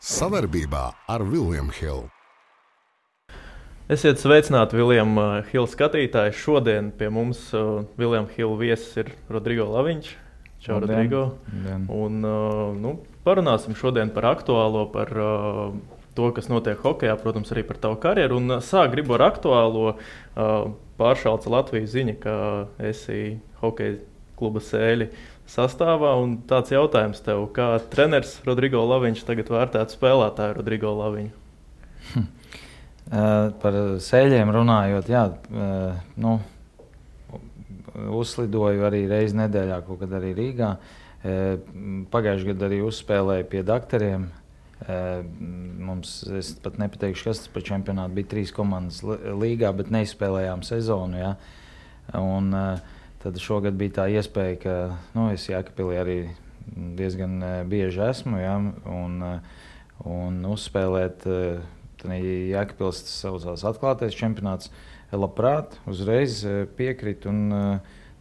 Sadarbībā ar William Hill. Esiet sveicināti, William Hill skatītāji. Šodien pie mums William Hill viesis ir Rodrigo Laviņš. Čau, Rodrigo. Un, parunāsim šodien par aktuālo, par to, kas notiek hokejā, protams, arī par tavu karjeru. Un sāk gribu ar aktuālo pāršalca Latvijas ziņa, ka esi hokeja kluba Sēļi sastāvā. Un tāds jautājums tev, kā treneris Rodrigo Laviņš tagad vērtētu spēlētāju Rodrigo Laviņu? Par Sēļiem runājot, uzslidoju arī reizi nedēļā, kaut kad arī Rīgā. Pagājušajā gadā arī uzspēlēju pie daktariem. Es pat nepateikšu, kas tas par čempionātu bija 3 komandas līgā, bet neizspēlējām sezonu. Ja? Un tad šogad bija tā iespēja, ka es Jēkabpilī arī diezgan bieži esmu, ja? un uzspēlēt Jēkabpils saucās atklātais čempionāts. Labprāt, uzreiz piekritu un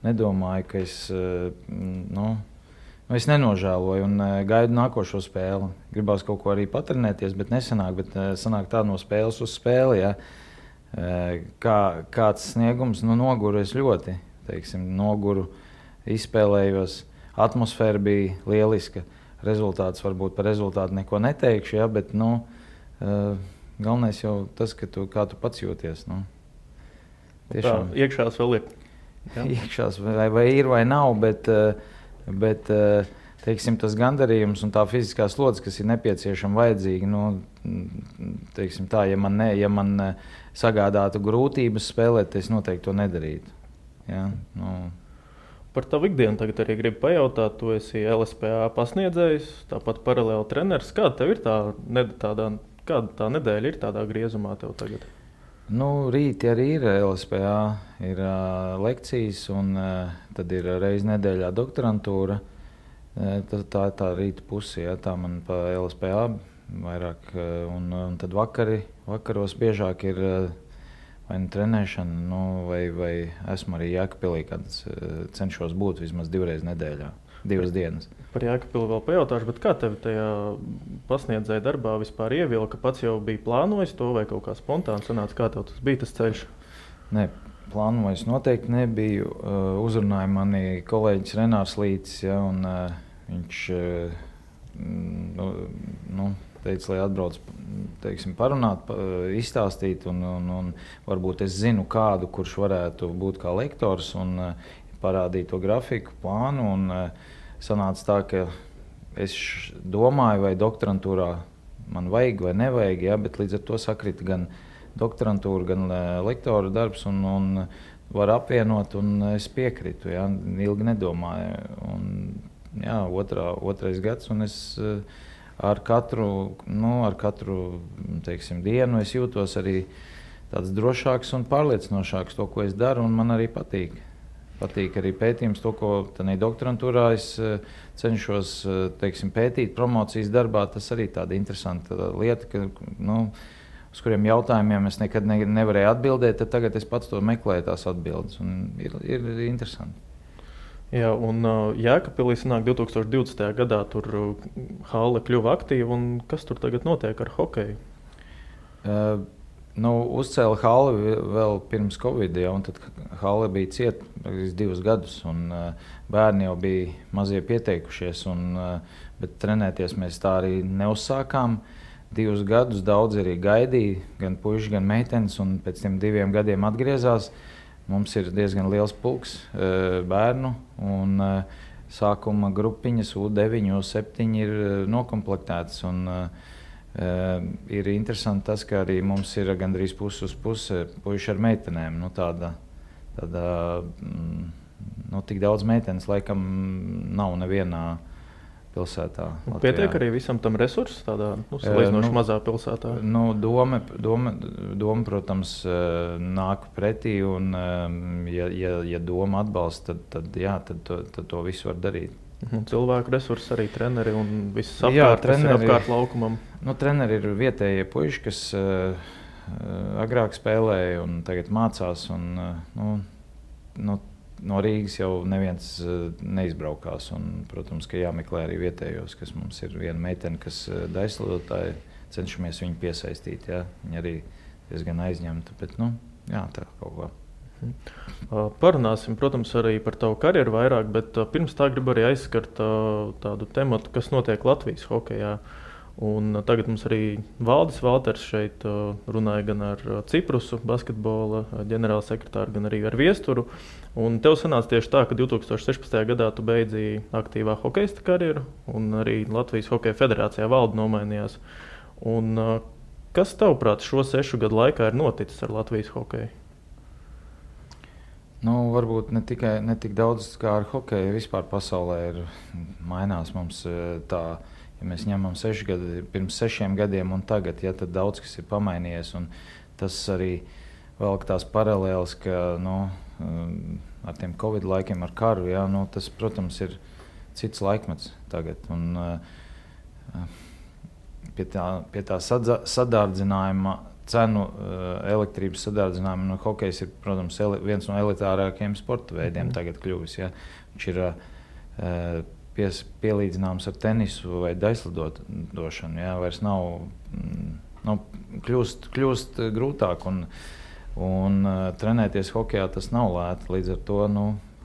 nedomāju, ka es nenožēloju un gaidu nākošo spēli. Gribās kaut ko arī patrenēties, bet nesanāk, bet sanāk tā no spēles uz spēli. Ja. Kāds sniegums, noguru es ļoti, noguru, izspēlējos, atmosfēra bija lieliska. Rezultāts varbūt par rezultātu neko neteikšu, ja, bet galvenais jau tas, kā tu pats jūties. Tiešām. Tā, iekšās vēl ir. Ja? Iekšās vai ir vai nav, bet tas gandarījums un tā fiziskā slodze, kas ir nepieciešama, vajadzīga, ja man sagādātu grūtības spēlēt, es noteikti to nedarītu. Ja? Par tavu ikdienu tagad arī gribu pajautāt. Tu esi LSPA pasniedzējs, tāpat paralēli treneris. Kāda tev ir kāda tā nedēļa ir tādā griezumā tev tagad? Rīti arī ir LSPA, ir lekcijas, un tad ir reizi nedēļā doktorantūra. Tā ir tā rīta puse, ja, tā man pa LSPA vairāk. Un tad vakaros biežāk ir vai trenēšana, vai esmu arī Jēkabpilī, kad cenšos būt vismaz 2 reizes nedēļā, 2 dienas. Par Jēkabpili vēl pajautāšu, bet kā tev tajā pasniedzēja darbā vispār ievilka? Pats jau bija plānojis to vai kaut kā spontāni sanāca? Kā tev tas bija tas ceļš? Nē, plānojis noteikti nebiju. Uzrunāja mani kolēģis Renārs Lītis, ja, un viņš teica, lai atbrauc parunāt, izstāstīt, un varbūt es zinu kādu, kurš varētu būt kā lektors un parādīt to grafiku, plānu. Un sanāca tā, ka es domāju, vai doktorantūrā man vajag vai nevajag, ja, bet līdz ar to sakrita gan doktorantūra, gan lektora darbs, un var apvienot, un es piekritu, ja, ilgi nedomāju. Un, jā, otrais gads, un es ar katru dienu es jūtos arī tāds drošāks un pārliecinošāks to, ko es daru, un man arī patīk. Patīk arī pētījums, to, ko doktorantūrā es cenšos pētīt promocijas darbā. Tas arī tāda interesanta lieta, uz kuriem jautājumiem es nekad nevarēju atbildēt, tad tagad es pats to meklēju tās atbildes, un ir interesanti. Jā, un Jēkabpilī sanāk 2020. gadā tur hale kļuva aktīva, un kas tur tagad notiek ar hokeju? Uzcēla hali vēl pirms Covid, ja, un tad hale bija cieta 2 gadus, un bērni jau bija mazie pieteikušies, bet trenēties mēs tā arī neuzsākām. 2 gadus daudz arī gaidīja, gan puiši, gan meitenes, un pēc tiem 2 gadiem atgriezās. Mums ir diezgan liels pulks bērnu, un sākuma grupiņas U9, U7 ir nokomplektētas. Ir interesanti tas, ka arī mums ir gandrīz pusi uz pusi puiši ar meitenēm. Tik daudz meitenes laikam nav nevienā pilsētā. Pietiek arī visam tam resursu tādā salīdzinoši mazā pilsētā? Doma, protams, nāk pretī, un ja doma atbalsta, tad to visu var darīt. Cilvēku resursi, arī treneri un viss apkārt, kas ir apkārt laukumam. Treneri ir vietējie puiši, kas agrāk spēlēja un tagad mācās. no Rīgas jau neviens neizbraukās. Un, protams, ka jāmeklē arī vietējos, kas mums ir viena meitene, kas daislidotāji, cenšamies viņu piesaistīt. Ja? Viņa arī diezgan aizņemta, bet jā, tā kaut kā. Parunāsim, protams, arī par tavu karjeru vairāk, bet pirms tā gribu arī aizskart tādu tematu, kas notiek Latvijas hokejā. Un tagad mums arī Valdis Valters šeit runāja gan ar Ciprusu basketbola ģenerālsekretāru, gan arī ar Viesturu. Un tev sanāca tieši tā, ka 2016. gadā tu beidzīji aktīvā hokeista karjeru, un arī Latvijas Hokeja federācijā valde nomainījās. Un kas tavuprāt šo 6 gadu laikā ir noticis ar Latvijas hokeju? Varbūt ne tik daudz kā ar hokeju. Vispār pasaulē ir mainās mums tā, ja mēs ņemam 6 gadu, pirms 6 gadiem un tagad, ja, tad daudz kas ir pamainījies. Un tas arī velk tās paralēles, ka ar tiem Covid laikiem, ar karu, ja, tas, protams, ir cits laikmets tagad. Un pie tā sadārdzinājuma cenu elektrības sadārdzinājuma hokejs ir, protams, viens no elitārākajiem sporta veidiem tagad kļuvis. Ja. Viņš ir pielīdzināms ar tenisu vai daislidošanu. Ja. Vairs nav kļūst grūtāk un trenēties hokejā tas nav lēti. Līdz ar to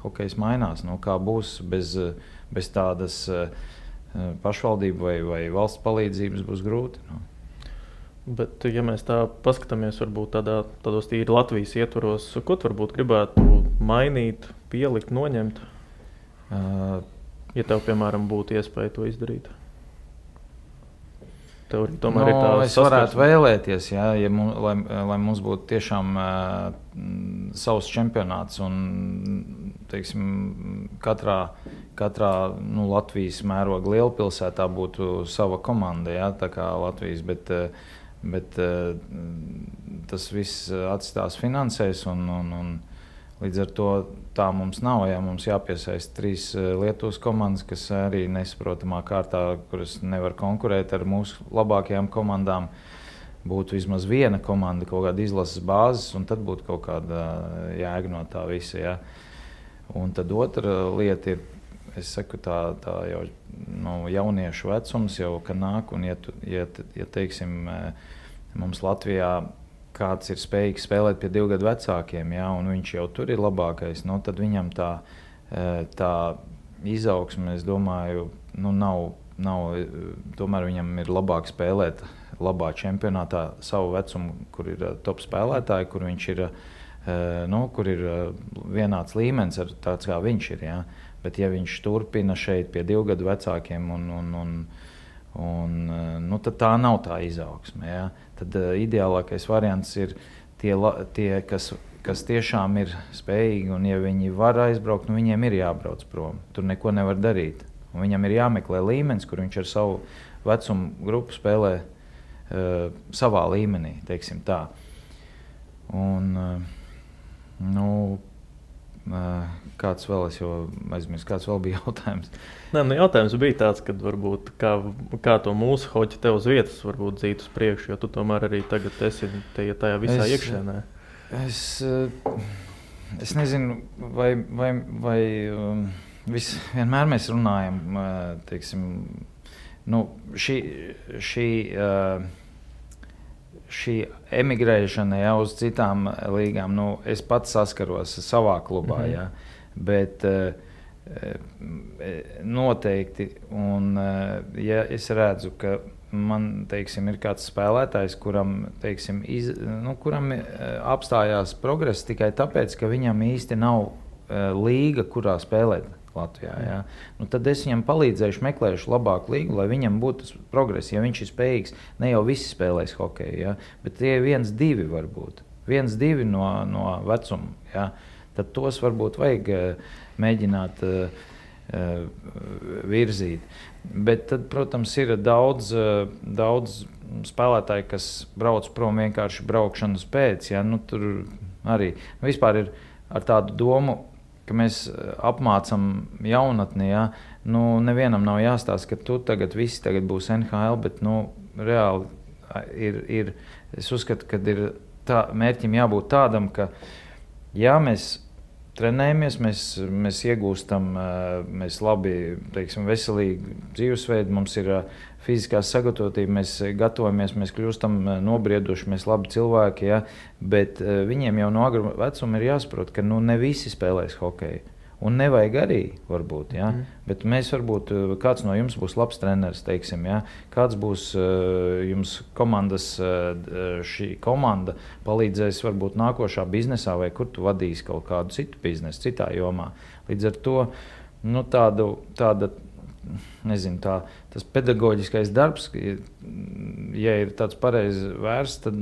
hokejs mainās. Kā būs bez tādas pašvaldību vai valsts palīdzības būs grūti. Bet, ja mēs tā paskatāmies, varbūt tādos tīri Latvijas ietvaros, ko tu varbūt gribētu mainīt, pielikt, noņemt, ja tev, piemēram, būtu iespēja to izdarīt? Tev tomēr ir tā es varētu vēlēties, ja lai mums būtu tiešām savs čempionāts un, teiksim, katrā Latvijas mēroga lielpilsētā būtu sava komanda, ja, tā kā Latvijas, bet tas viss atstās finansēs un līdz ar to tā mums nav. Ja, mums jāpiesaist 3 Lietuvas komandas, kas arī nesaprotamā kārtā, kuras nevar konkurēt ar mūsu labākajām komandām. Būtu vismaz viena komanda, kaut kāda izlases bāzes, un tad būtu kaut kāda jēga no tā visa. Ja. Un tad otra lieta ir, es saku, tā jau jauniešu vecums jau, ka nāk, un ja teiksim, mums Latvijā kāds ir spējīgs spēlēt pie 2 gadu vecākiem, ja, un viņš jau tur ir labākais, tad viņam tā izaugsme, es domāju, nav, tomēr viņam ir labāk spēlēt labā čempionātā savu vecumu, kur ir top spēlētāji, kur viņš ir, kur ir vienāds līmenis ar tāds, kā viņš ir, ja. Bet ja viņš turpina šeit pie 2 gadu vecākiem tad tā nav tā izaugsme. Ja? Tad ideālākais variants ir tie kas tiešām ir spējīgi, un ja viņi var aizbraukt, viņiem ir jābrauc prom. Tur neko nevar darīt. Un viņam ir jāmeklē līmenis, kur viņš ar savu vecumu grupu spēlē savā līmenī, teiksim tā. Un, kāds vēl, es jau aizmirsu, kāds vēl bija jautājums? Jautājums bija tāds, kad varbūt kā to mūsu hoķi tev uz vietas varbūt dzīt uz priekšu, jo tu tomēr arī tagad esi tajā visā iekšēnē. Es nezinu, vai vienmēr mēs runājam, teiksim, šī emigrēšana, ja, uz citām līgām, es pats saskaros savā klubā, ja, bet noteikti, un ja es redzu, ka man, teiksim, ir kāds spēlētājs, kuram, teiksim, kuram apstājās progress tikai tāpēc, ka viņam īsti nav līga, kurā spēlēt Latvijā. Ja? Tad es viņam palīdzēšu, meklēšu labāku līgu, lai viņam būtu progress. Ja viņš ir spējīgs, ne jau visi spēlēs hokeju, ja? Bet tie 1-2 varbūt. 1-2 no vecuma. Ja? Tad tos varbūt vajag mēģināt virzīt. Bet tad, protams, ir daudz spēlētāji, kas brauc prom vienkārši braukšanas pēc. Ja? Tur arī vispār ir ar tādu domu, ka mēs apmācam jaunatni, ja? Nevienam nav jāstāsta, ka visi tagad būs NHL, bet reāli ir, es uzskatu, ka ir mērķim jābūt tādam, ka ja mēs trenējamies, mēs iegūstam, mēs labi, teiksim, veselīgi dzīvesveidu, mums ir fiziskā sagatavotība, mēs gatavojamies, mēs kļūstam nobrieduši, mēs labi cilvēki, ja? Bet viņiem jau no agra vecuma ir jāsaprot, ka ne visi spēlēs hokeju. Un nevajag arī, varbūt, ja? Bet mēs varbūt, kāds no jums būs labs treneris, teiksim, ja? Kāds būs jums komandas, šī komanda palīdzēs varbūt nākošā biznesā, vai kur tu vadīsi kaut kādu citu biznesu, citā jomā. Līdz ar to, tāda, nezinu, tas pedagoģiskais darbs, ja ir tāds pareizi vērsts, tad,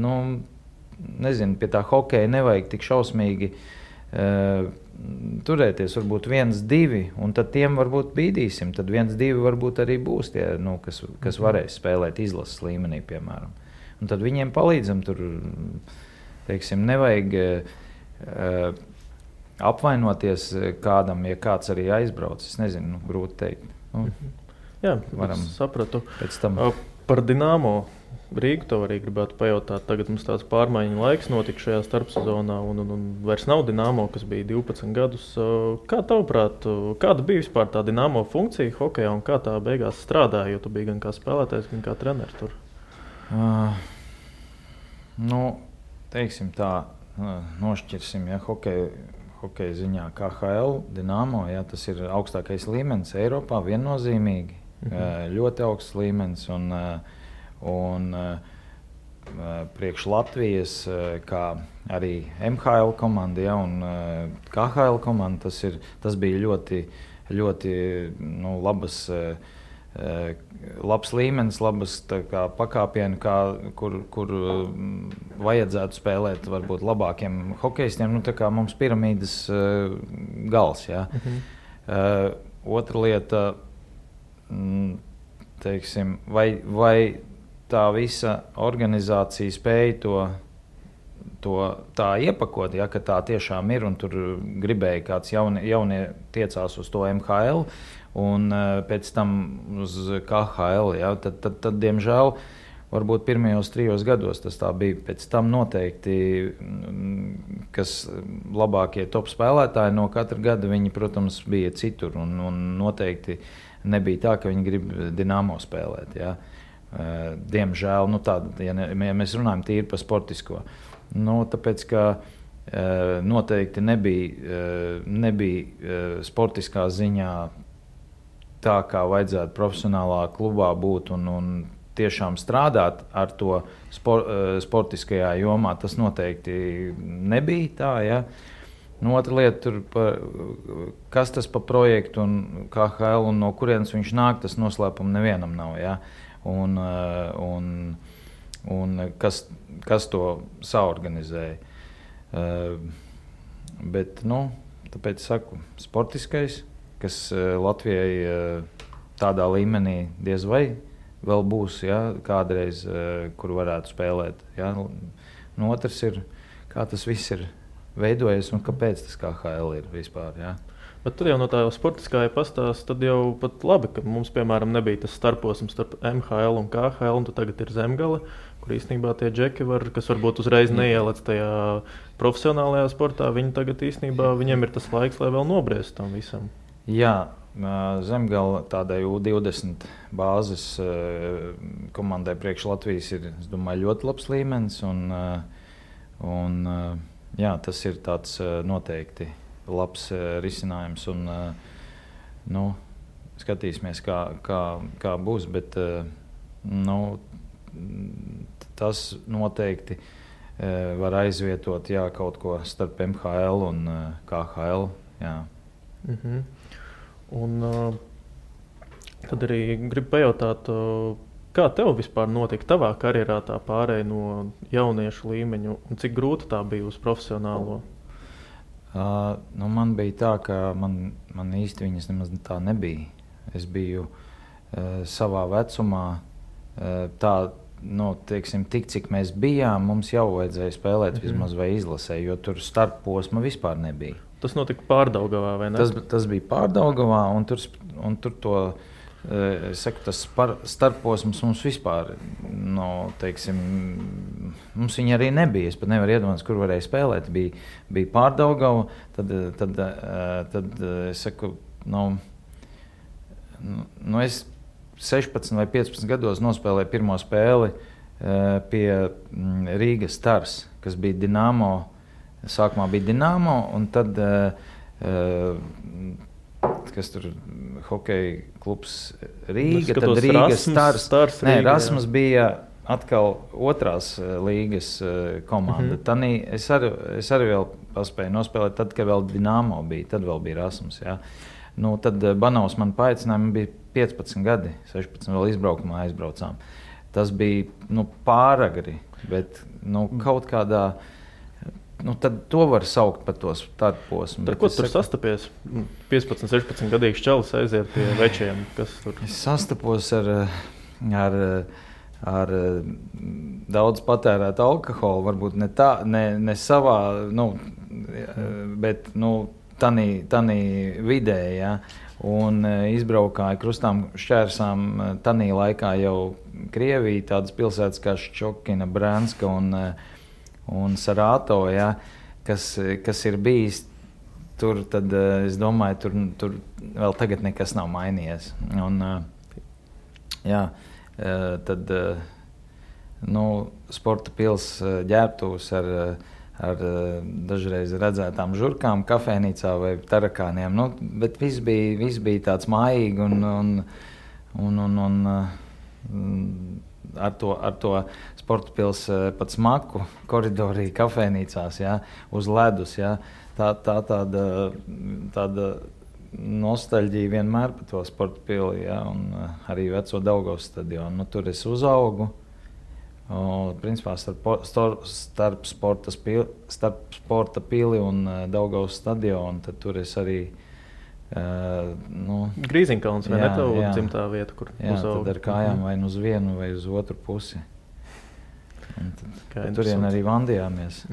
nezinu, pie tā hokeja nevajag tik šausmīgi turēties, varbūt 1-2, un tad tiem varbūt bīdīsim. Tad 1-2 varbūt arī būs tie, kas varēs spēlēt izlases līmenī, piemēram. Un tad viņiem palīdzam tur, teiksim, nevajag apvainoties kādam, ja kāds arī aizbrauc. Es nezinu, grūti teikt. Jā, varam sapratu. Par Dinamo Rīgu to arī gribētu pajautāt. Tagad mums tāds pārmaiņu laiks notika šajā starpsezonā, un vairs nav Dinamo, kas bija 12 gadus. Kā tavuprāt, kāda bija vispār tā Dinamo funkcija hokejā un kā tā beigās strādāja, jo tu biji gan kā spēlētājs, gan kā treneris tur? Teiksim tā, nošķirsim, ja hokeja ziņā KHL, Dinamo, ja, tas ir augstākais līmenis Eiropā, viennozīmīgi, ļoti augsts līmenis, un priekš Latvijas, kā arī MHL komanda, ja, un KHL komanda, tas bija ļoti labs līmenis, labas pakāpieni, kur vajadzētu spēlēt varbūt labākiem hokejistiem, tā kā mums piramīdas gals. Ja. Otra lieta, teiksim, vai tā visa organizācija spēja to tā iepakot, ja, ka tā tiešām ir, un tur gribēja kāds jaunie tiecās uz to MHL, un pēc tam uz KHL, ja, tad diemžēl, varbūt pirmajos 3 gados tas tā bija. Pēc tam noteikti, kas labākie top spēlētāji no katra gada, viņi, protams, bija citur, un noteikti nebija tā, ka viņi grib Dinamo spēlēt, ja. Diemžēl, ja mēs runājam tīri par sportisko, tāpēc, ka noteikti nebija sportiskā ziņā tā, kā vajadzētu profesionālā klubā būt un tiešām strādāt ar to sportiskajā jomā, tas noteikti nebija tā, ja. Otra lieta, kas tas pa projektu un KHL un no kurienes viņš nāk, tas noslēpums nevienam nav, ja. Un kas to saorganizēja. Bet, tāpēc saku, sportiskais, kas Latvijai tādā līmenī diez vai vēl būs, ja, kādreiz, kur varētu spēlēt. Ja. Otrs ir, kā tas viss ir veidojies un kāpēc tas KHL ir vispār. Ja. Bet tad jau no tā sportiskā pastāsta, tad jau pat labi, ka mums, piemēram, nebija tas starposms starp MHL un KHL, un tagad ir Zemgale, kur īstenībā tie džeki kas varbūt uzreiz neielec tajā profesionālajā sportā, viņi tagad īstenībā, viņiem ir tas laiks, lai vēl nobriest tam visam. Jā, Zemgale tādai U20 bāzes komandai priekš Latvijas ir, es domāju, ļoti labs līmenis, un jā, tas ir tāds noteikti labs risinājums, un skatīsimies, kā būs, bet tas noteikti var aizvietot, jā, kaut ko starp MHL un KHL. Jā. Un tad arī gribu pajautāt, kā tev vispār notika tavā karjerā tā pārēja no jauniešu līmeņu, un cik grūti tā bija uz profesionālo? Man bija tā, ka man īsti viņas nemaz tā nebija. Es biju savā vecumā, teiksim, tik cik mēs bijām, mums jau vajadzēja spēlēt vismaz vai izlasē, jo tur starpposma vispār nebija. Tas notika Pārdaugavā, vai ne? Tas bija Pārdaugavā, un tur to, es saku, tas starpposms mums vispār, teiksim, mums viņa arī nebija. Es pat nevaru iedomāties, kur varēja spēlēt. Bija Pārdaugava, tad es saku, es 16 vai 15 gados nospēlēju pirmo spēli pie Rīgas Stars, kas bija Dinamo. Sākumā bija Dinamo, un tad, kas tur hokeja klubs Rīga, tad Rīgas Stars. Nē, Rasmus bija atkal otrās līgas komanda. Es arī vēl paspēju nospēlēt, tad, kad vēl Dinamo bija, tad vēl bija Rasmus. Jā. Tad Banovs man paaicināja, man bija 15 gadi, 16 vēl izbraukumā aizbraucām. Tas bija pāragri, bet kaut kādā... tad to var saukt par to tādu posmu. Ko tur sastapies? 15, 16 gadīgs čalis aiziet pie večiem. Kas tur? Es sastapos ar daudz patērētu alkoholu, varbūt ne savā, bet tanī vidē, ja? Un izbraukāja krustām šķērsām tanī laikā jau Krievija, tādas pilsētas kā Ščokina, Brānska un Sarāto, ja, kas ir bijis tur, tad es domāju, tur vēl tagad nekas nav mainījies. Un, tad sporta pils ģērbtuvs ar dažreiz redzētām žurkām kafēnīcā vai tarakāniem, bet viss bija tāds mājīgi un ar to sporta pils pat smaku koridorī kafēnīcās, ja, uz ledus. Ja, tāda nostalģija vienmēr par to sporta pili, ja, un arī veco Daugavas stadionu. Tur es uzaugu. Principā starp sporta pili un Daugavas stadionu, tad tur es arī Grīziņkalns, vai ne tavu dzimtā vieta, kur uzaugu? Tad ar kājām vai uz vienu vai uz otru pusi. Turien arī vandījāmies.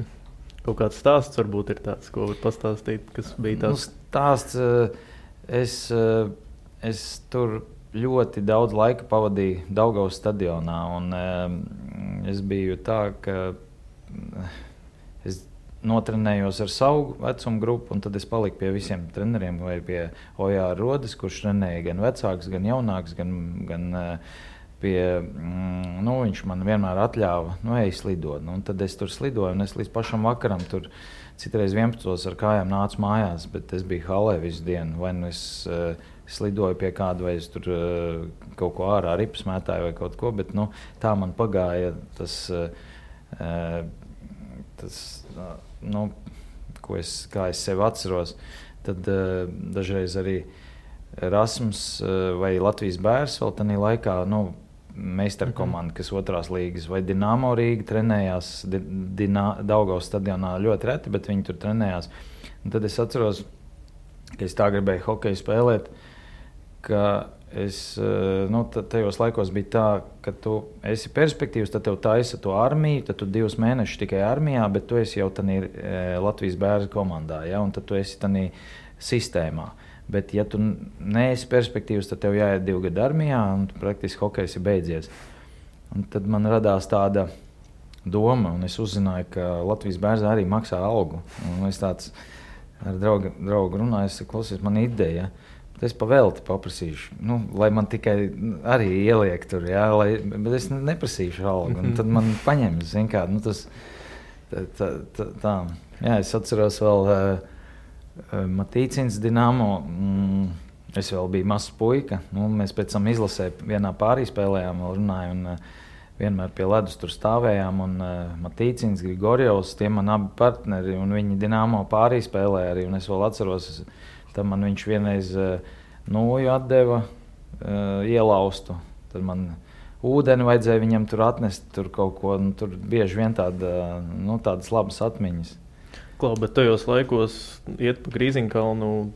Kaut kāds stāsts varbūt ir tāds, ko var pastāstīt, kas bija tāds? Stāsts, es tur ļoti daudz laika pavadīju Daugavas stadionā, un es biju tā, ka es notrenējos ar savu vecumu grupu, un tad es paliku pie visiem treneriem, vai pie Ojāra Rodes, kurš trenēja gan vecāks, gan jaunāks, gan pie, viņš man vienmēr atļāva, ej slidot. Un tad es tur slidoju, un es līdz pašam vakaram tur citreiz 11 ar kājām nācu mājās, bet es biju halē visu dienu, vai es slidoju pie kāda, vai es tur kaut ko ārā ripas mētāju vai kaut ko, bet tā man pagāja tas kā es sevi atceros. Tad dažreiz arī Rasmus vai Latvijas Bērs vēl tajā laikā, meistaru komanda, kas otrās līgas, vai Dinamo Rīga trenējās Daugavas stadionā ļoti reti, bet viņi tur trenējās. Un tad es atceros, ka es tā gribēju hokeju spēlēt, ka es, tajos laikos bija tā, ka tu esi perspektīvs, tad tev taisa to armiju, tad tu 2 mēnešus tikai armijā, bet tu esi jau tādā Latvijas Bērza komandā, ja, un tad tu esi tādā sistēmā. Bet ja tu neesi perspektīvs, tad tev jāiet 2 gadu armijā, un praktiski hokejs ir beidzies. Un tad man radās tāda doma, un es uzzināju, ka Latvijas Bērzā arī maksā algu. Un es tāds ar draugu runāju, es saku, klausies, man ideja, es pavēlti paprasīšu, lai man tikai arī ieliek tur, jā, bet es neprasīšu algu. Un tad man paņem, zin kā, tas tā. Jā, es atceros vēl Matīcins Dinamo, es vēl biju mazs puika, mēs pēc tam izlasē vienā pārī spēlējām, vēl runāju, un vienmēr pie ledus tur stāvējām, un Matīcins, Grigorjevs, tie man abi partneri, un viņi Dinamo pārī spēlēja arī, un es vēl atceros, tad man viņš vienreiz nūju atdeva ielaustu. Tad man ūdeni vajadzēja viņam tur atnest, tur kaut ko, tur bieži vien tādas labas atmiņas. Klau, bet tajos laikos iet pa Grīziņkalnu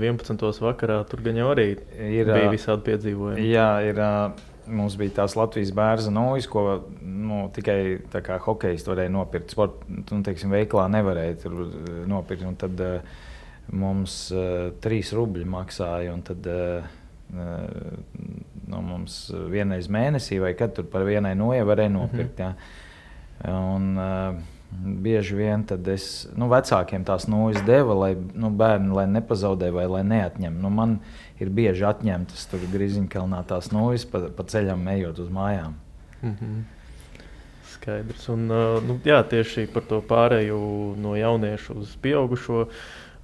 11. vakarā, tur gan jau arī bija visādi piedzīvojumi. Jā, mums bija tās Latvijas Bērza nūjas, ko tikai tā kā hokejs varēja nopirkt. Veiklā nevarēja tur nopirkt, un tad mums 3 rubļi maksāja, un tad mums vienreiz mēnesī vai kad tur par vienai noja varēja nopirkt. Jā. Un, bieži vien vecākiem tās nūjas deva, lai bērni lai nepazaudē vai lai neatņem. Man ir bieži atņemtas tur Griziņkalnā tās nūjas pa ceļam ejot uz mājām. Skaidrs. Un, jā, tieši par to pārēju no jauniešu uz pieaugušo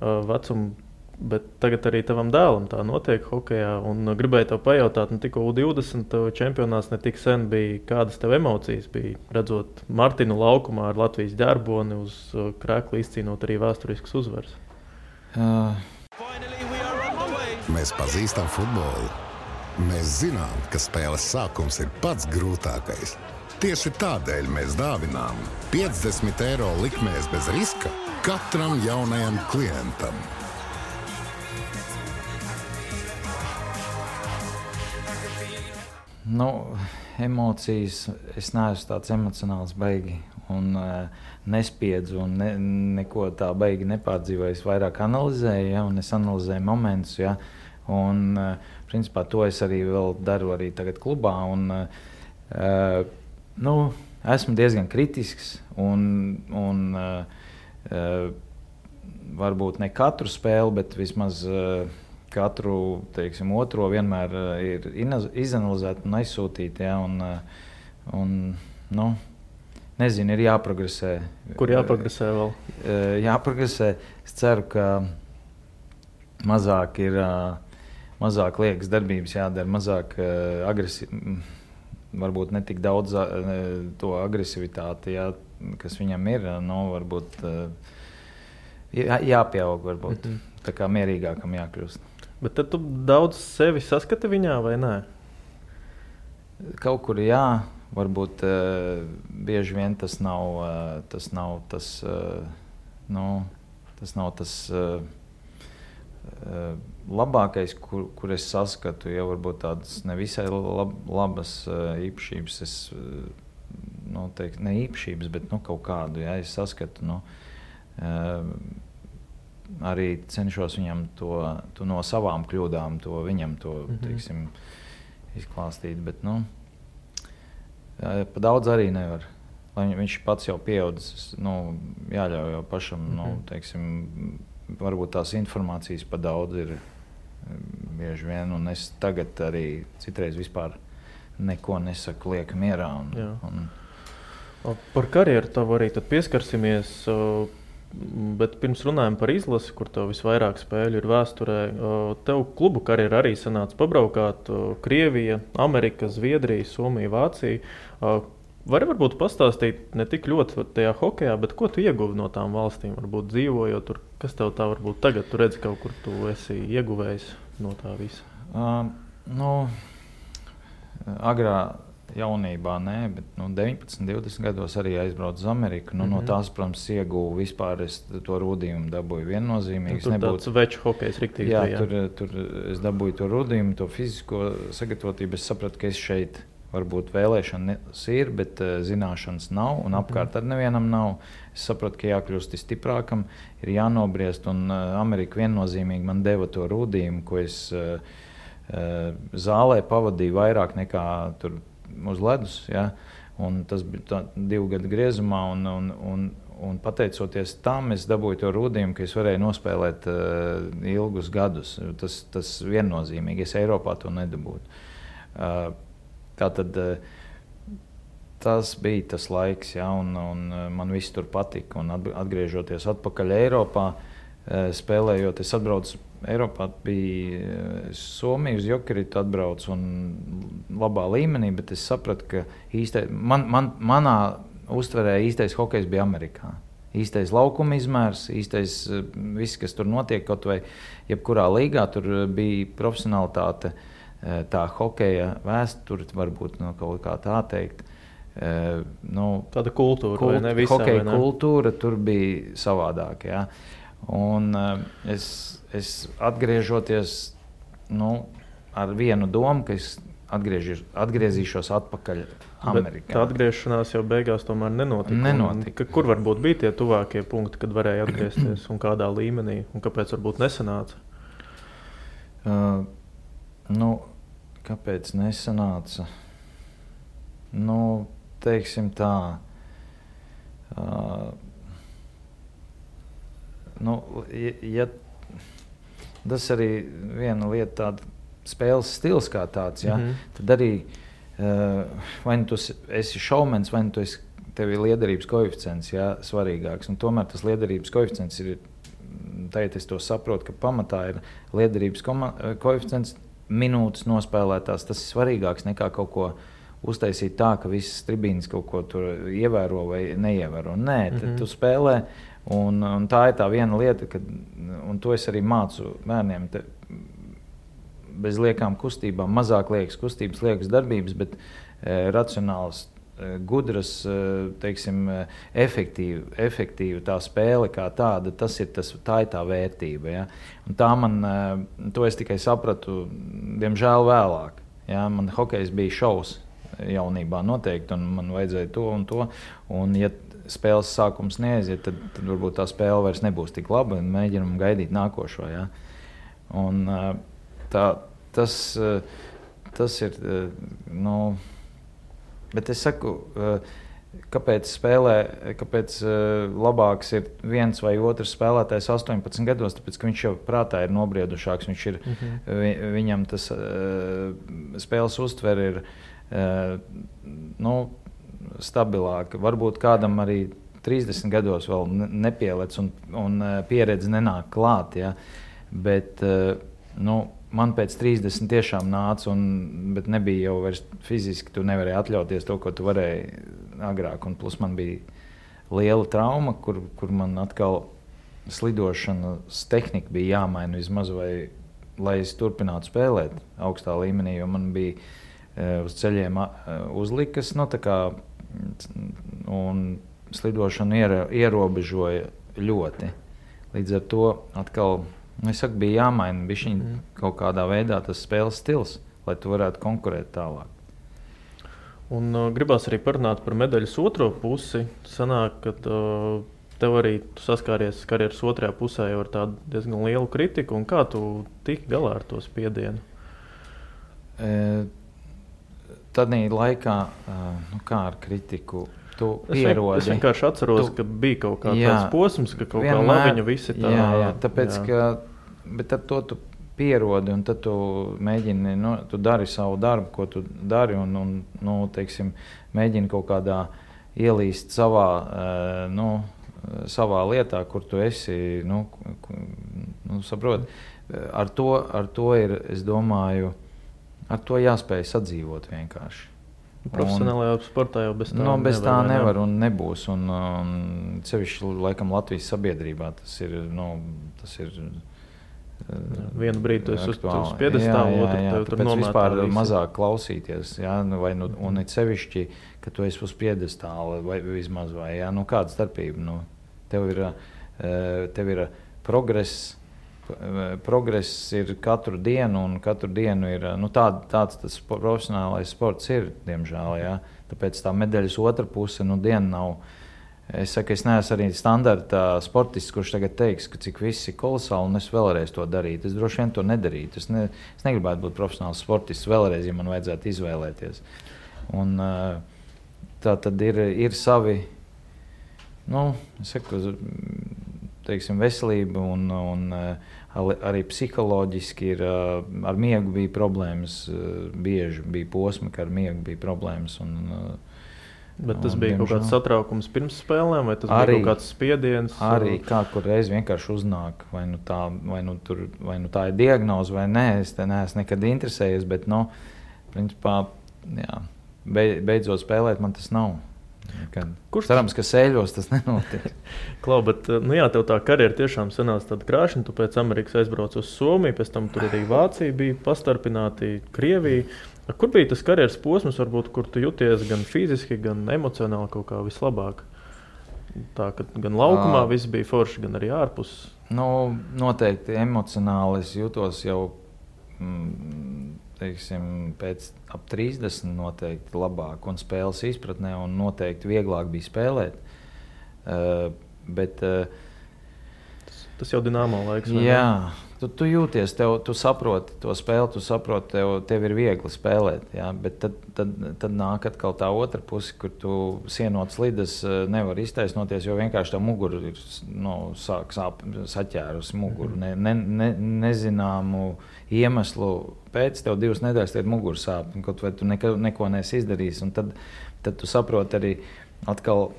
vecumu. Bet tagad arī tavam dēlam tā notiek hokejā. Gribēju tev pajautāt, tikko U20 čempionāts ne tik sen bija. Kādas tev emocijas bija, redzot Martinu laukumā ar Latvijas ģerboni uz krēkla izcīnot arī vēsturiskas uzvaras? Mēs pazīstam futbolu. Mēs zinām, ka spēles sākums ir pats grūtākais. Tieši tādēļ mēs dāvinām 50 eiro likmēs bez riska katram jaunajam klientam. Emocijas, es neesmu tāds emocionāls baigi un nespiedzu un neko tā baigi nepārdzīvoju. Es vairāk analizēju, ja, un es analizēju momentus, ja, un principā to es arī vēl daru arī tagad klubā. Un, esmu diezgan kritisks un varbūt ne katru spēli, bet vismaz katru, teiksim, otro vienmēr ir izanalizēt un aizsūtīt, ja, nezinu, ir jāprogresē. Kur jāprogresē vēl? Jāprogresē. Es ceru, ka mazāk liekas darbības jādara, mazāk varbūt ne tik daudz to agresivitāti, ja, kas viņam ir, varbūt jāpieaug, varbūt. Tā kā mierīgākam jākļūst. Bet tad tu daudz sevi saskati viņā, vai nē? Kaut kur jā, varbūt bieži vien tas nav tas labākais, kur es saskatu. Ja varbūt tādas nevisai labas īpašības, ne īpašības, bet kaut kādu, ja es saskatu. Arī cenšos viņam to no savām kļūdām, viņam to teiksim, izklāstīt. Bet pa daudz arī nevar. Lai viņš pats jau pieaudzis, jāļauj jau pašam, teiksim, varbūt tās informācijas pa daudz ir bieži vien. Un es tagad arī citreiz vispār neko nesaku, lieku mierā. Par karjeru tavu arī tad pieskarsimies. Bet pirms runājam par izlasi, kur tev visvairāk spēļu ir vēsturē, tev klubu karjeru arī sanāca pabraukāt Krievija, Amerika, Zviedrija, Somija, Vācija. Vari varbūt pastāstīt ne tik ļoti tajā hokejā, bet ko tu ieguvi no tām valstīm, varbūt dzīvojot tur? Kas tev tā varbūt tagad, tu redzi kaut kur tu esi ieguvējis no tā visa? Agrā jaunībā, bet 19, 20 gados arī aizbraucu uz Ameriku. No tās, protams, ieguvu vispār, es to rūdījumu dabūju viennozīmīgi. Tur tāds veču hokejs riktīgi. Jā, tur es dabūju to rūdījumu, to fizisko sagatavotību. Es sapratu, ka es šeit varbūt vēlēšanas ir, bet zināšanas nav un apkārt ar nevienam nav. Es sapratu, ka jākļūst stiprākam, ir jānobriest, un Amerika viennozīmīgi man deva to rūdījumu, ko es zālē pavadīju vairāk nekā tur uz ledus, ja? Un tas bija 2 gadu griezumā, un pateicoties tam, es dabūju to rūdījumu, ka es varēju nospēlēt ilgus gadus. Tas viennozīmīgi, es Eiropā to nedabūtu. Tātad tas bija tas laiks, ja? Un man viss tur patika, un atgriežoties atpakaļ Eiropā, spēlējot, es atbraucu Eiropā, bija Somija uz Jokeritu atbraucu un labā līmenī, bet es sapratu, ka manā uztverē īstais hokejs bija Amerikā. Īstais laukuma izmērs, īstais viss, kas tur notiek, kaut vai jebkurā līgā, tur bija profesionalitāte, tā hokeja vēsture, varbūt kaut kā tā teikt. Tāda kultūra, vai ne visā? Hokeja kultūra tur bija savādāk, ja. Un es atgriežoties ar vienu domu, ka es atgriezīšos atpakaļ Amerikā. Tā atgriešanās jau beigās tomēr nenotika. Kur varbūt bija tie tuvākie punkti, kad varēja atgriezties un kādā līmenī, un kāpēc varbūt nesanāca? Kāpēc nesanāca? Teiksim tā. Ja tas arī viena lieta, tāda spēles stils kā tāds, ja, tad arī vai nu tu esi šaumens, vai nu tev ir liederības koeficients, ja, svarīgāks. Un tomēr tas liederības koeficients ir, tagad es to saprotu, ka pamatā ir liederības koeficients, minūtes nospēlētās, tas ir svarīgāks nekā kaut ko uztaisīt tā, ka visas tribīnes kaut ko tur ievēro vai neievēro. Nē, tad tu spēlē, un tā ir tā viena lieta, un to es arī mācu bērniem, bez liekām kustībām, mazāk liekas kustības, liekas darbības, bet racionāls, gudras, teiksim, efektīva tā spēle kā tāda, tā ir tā vērtība. Ja? Un tā to es tikai sapratu, diemžēl vēlāk. Ja? Man hokejs bija šovs jaunībā noteikti, un man vajadzēja to un to. Un ja spēles sākums neaiziet, tad varbūt tā spēle vairs nebūs tik laba, un mēģinam gaidīt nākošo. Ja? Un tas ir, bet es saku, kāpēc labāks ir viens vai otrs spēlētājs 18 gados, tāpēc, ka viņš jau prātā ir nobriedušāks, viņam tas spēles uztver ir stabilāka. Varbūt kādam arī 30 gados vēl nepielec un pieredze nenāk klāt, ja? Bet man pēc 30 tiešām nāca, bet nebija jau vairs fiziski, tu nevarēji atļauties to, ko tu varēji agrāk. Un plus man bija liela trauma, kur man atkal slidošanas tehnika bija jāmaina vismaz, lai es turpinātu spēlēt augstā līmenī, jo man bija uz ceļiem uzlikas, un slidošanu ierobežoja ļoti. Līdz ar to atkal es saku, bija jāmaina bišķiņ kaut kādā veidā tas spēles stils, lai tu varētu konkurēt tālāk. Un gribās arī parunāt par medaļas otro pusi. Sanāk, ka tev arī tu saskāries karjeras otrajā pusē jau ar tādu diezgan lielu kritiku. Un kā tu tiki galā ar to spiedienu? Tādī laikā, kā ar kritiku, tu pierodi. Es vienkārši atceros, ka bija kaut tāds posms, ka kaut kā labiņa visi tā. Jā, tāpēc, bet ar to tu pierodi, un tad tu mēģini, tu dari savu darbu, ko tu dari, un teiksim, mēģini kaut kādā ielīst savā lietā, kur tu esi, saproti. Ar to ir, es domāju, ar to jāspēj sadzīvot vienkārši. Profesionālajā sportā jau bez tā bez tā nevar un nebūs. Un sevišķi laikam Latvijas sabiedrībā tas ir. Vienu brīdi tu esi uz piedestāla, otru tev tur nomētā. Vispār mazāk klausīties, un it sevišķi, ka tu esi uz piedestāla vai vismaz, kāda starpība. Tev ir progress. Progress ir katru dienu, un katru dienu ir tāds tas profesionālais sports ir, diemžēl. Ja? Tāpēc tā medaļas otra puse diena nav. Es saku, es neesmu arī standarta sportists, kurš tagad teiks, ka cik viss ir kolosāli, un es vēlreiz to darītu. Es droši vien to nedarītu. Es negribētu būt profesionāls sportists vēlreiz, ja man vajadzētu izvēlēties. Un tā tad ir savi, es saku, teiksim, veselība un arī psiholoģiski ar miegu bija problēmas. Bieži bija posmi, ka ar miegu bija problēmas. Bet tas bija kaut kāds satraukums pirms spēlēm, vai tas bija kaut kāds spiediens? Arī kur reiz vienkārši uznāk, vai tā ir diagnoze vai nē, es te neesmu nekad interesējies, bet, principā, beidzot spēlēt man tas nav. Cerams, ka sēļos tas nenotiek. Klau, bet tev tā karjera tiešām sanāca tāda krāšņa. Tu pēc Amerikas aizbrauc uz Somiju, pēc tam tur arī Vācija bija pastarpināti, Krievija. Kur bija tas karjeras posms, varbūt, kur tu jūties gan fiziski, gan emocionāli kaut kā vislabāk? Tā, ka gan laukumā viss bija forši, gan arī ārpus. Noteikti emocionāli es jūtos jau, pēc ap 30 noteikti labāk un spēles izpratnē, un noteikti vieglāk bija spēlēt. Bet tas jau Dinamo laiks. Jā, Tu jūties, tu saproti to spēli, tu saproti, tev ir viegli spēlēt. Ja? Bet tad nāk atkal tā otra puse, kur tu sienot slidas nevar iztaisnoties, jo vienkārši tā mugura ir sāk saķērusi muguru. Nezināmu iemeslu pēc tev 2 nedēļas tev mugura sāp, kaut vai tu neko neesi izdarījis. Un tad tu saproti arī atkal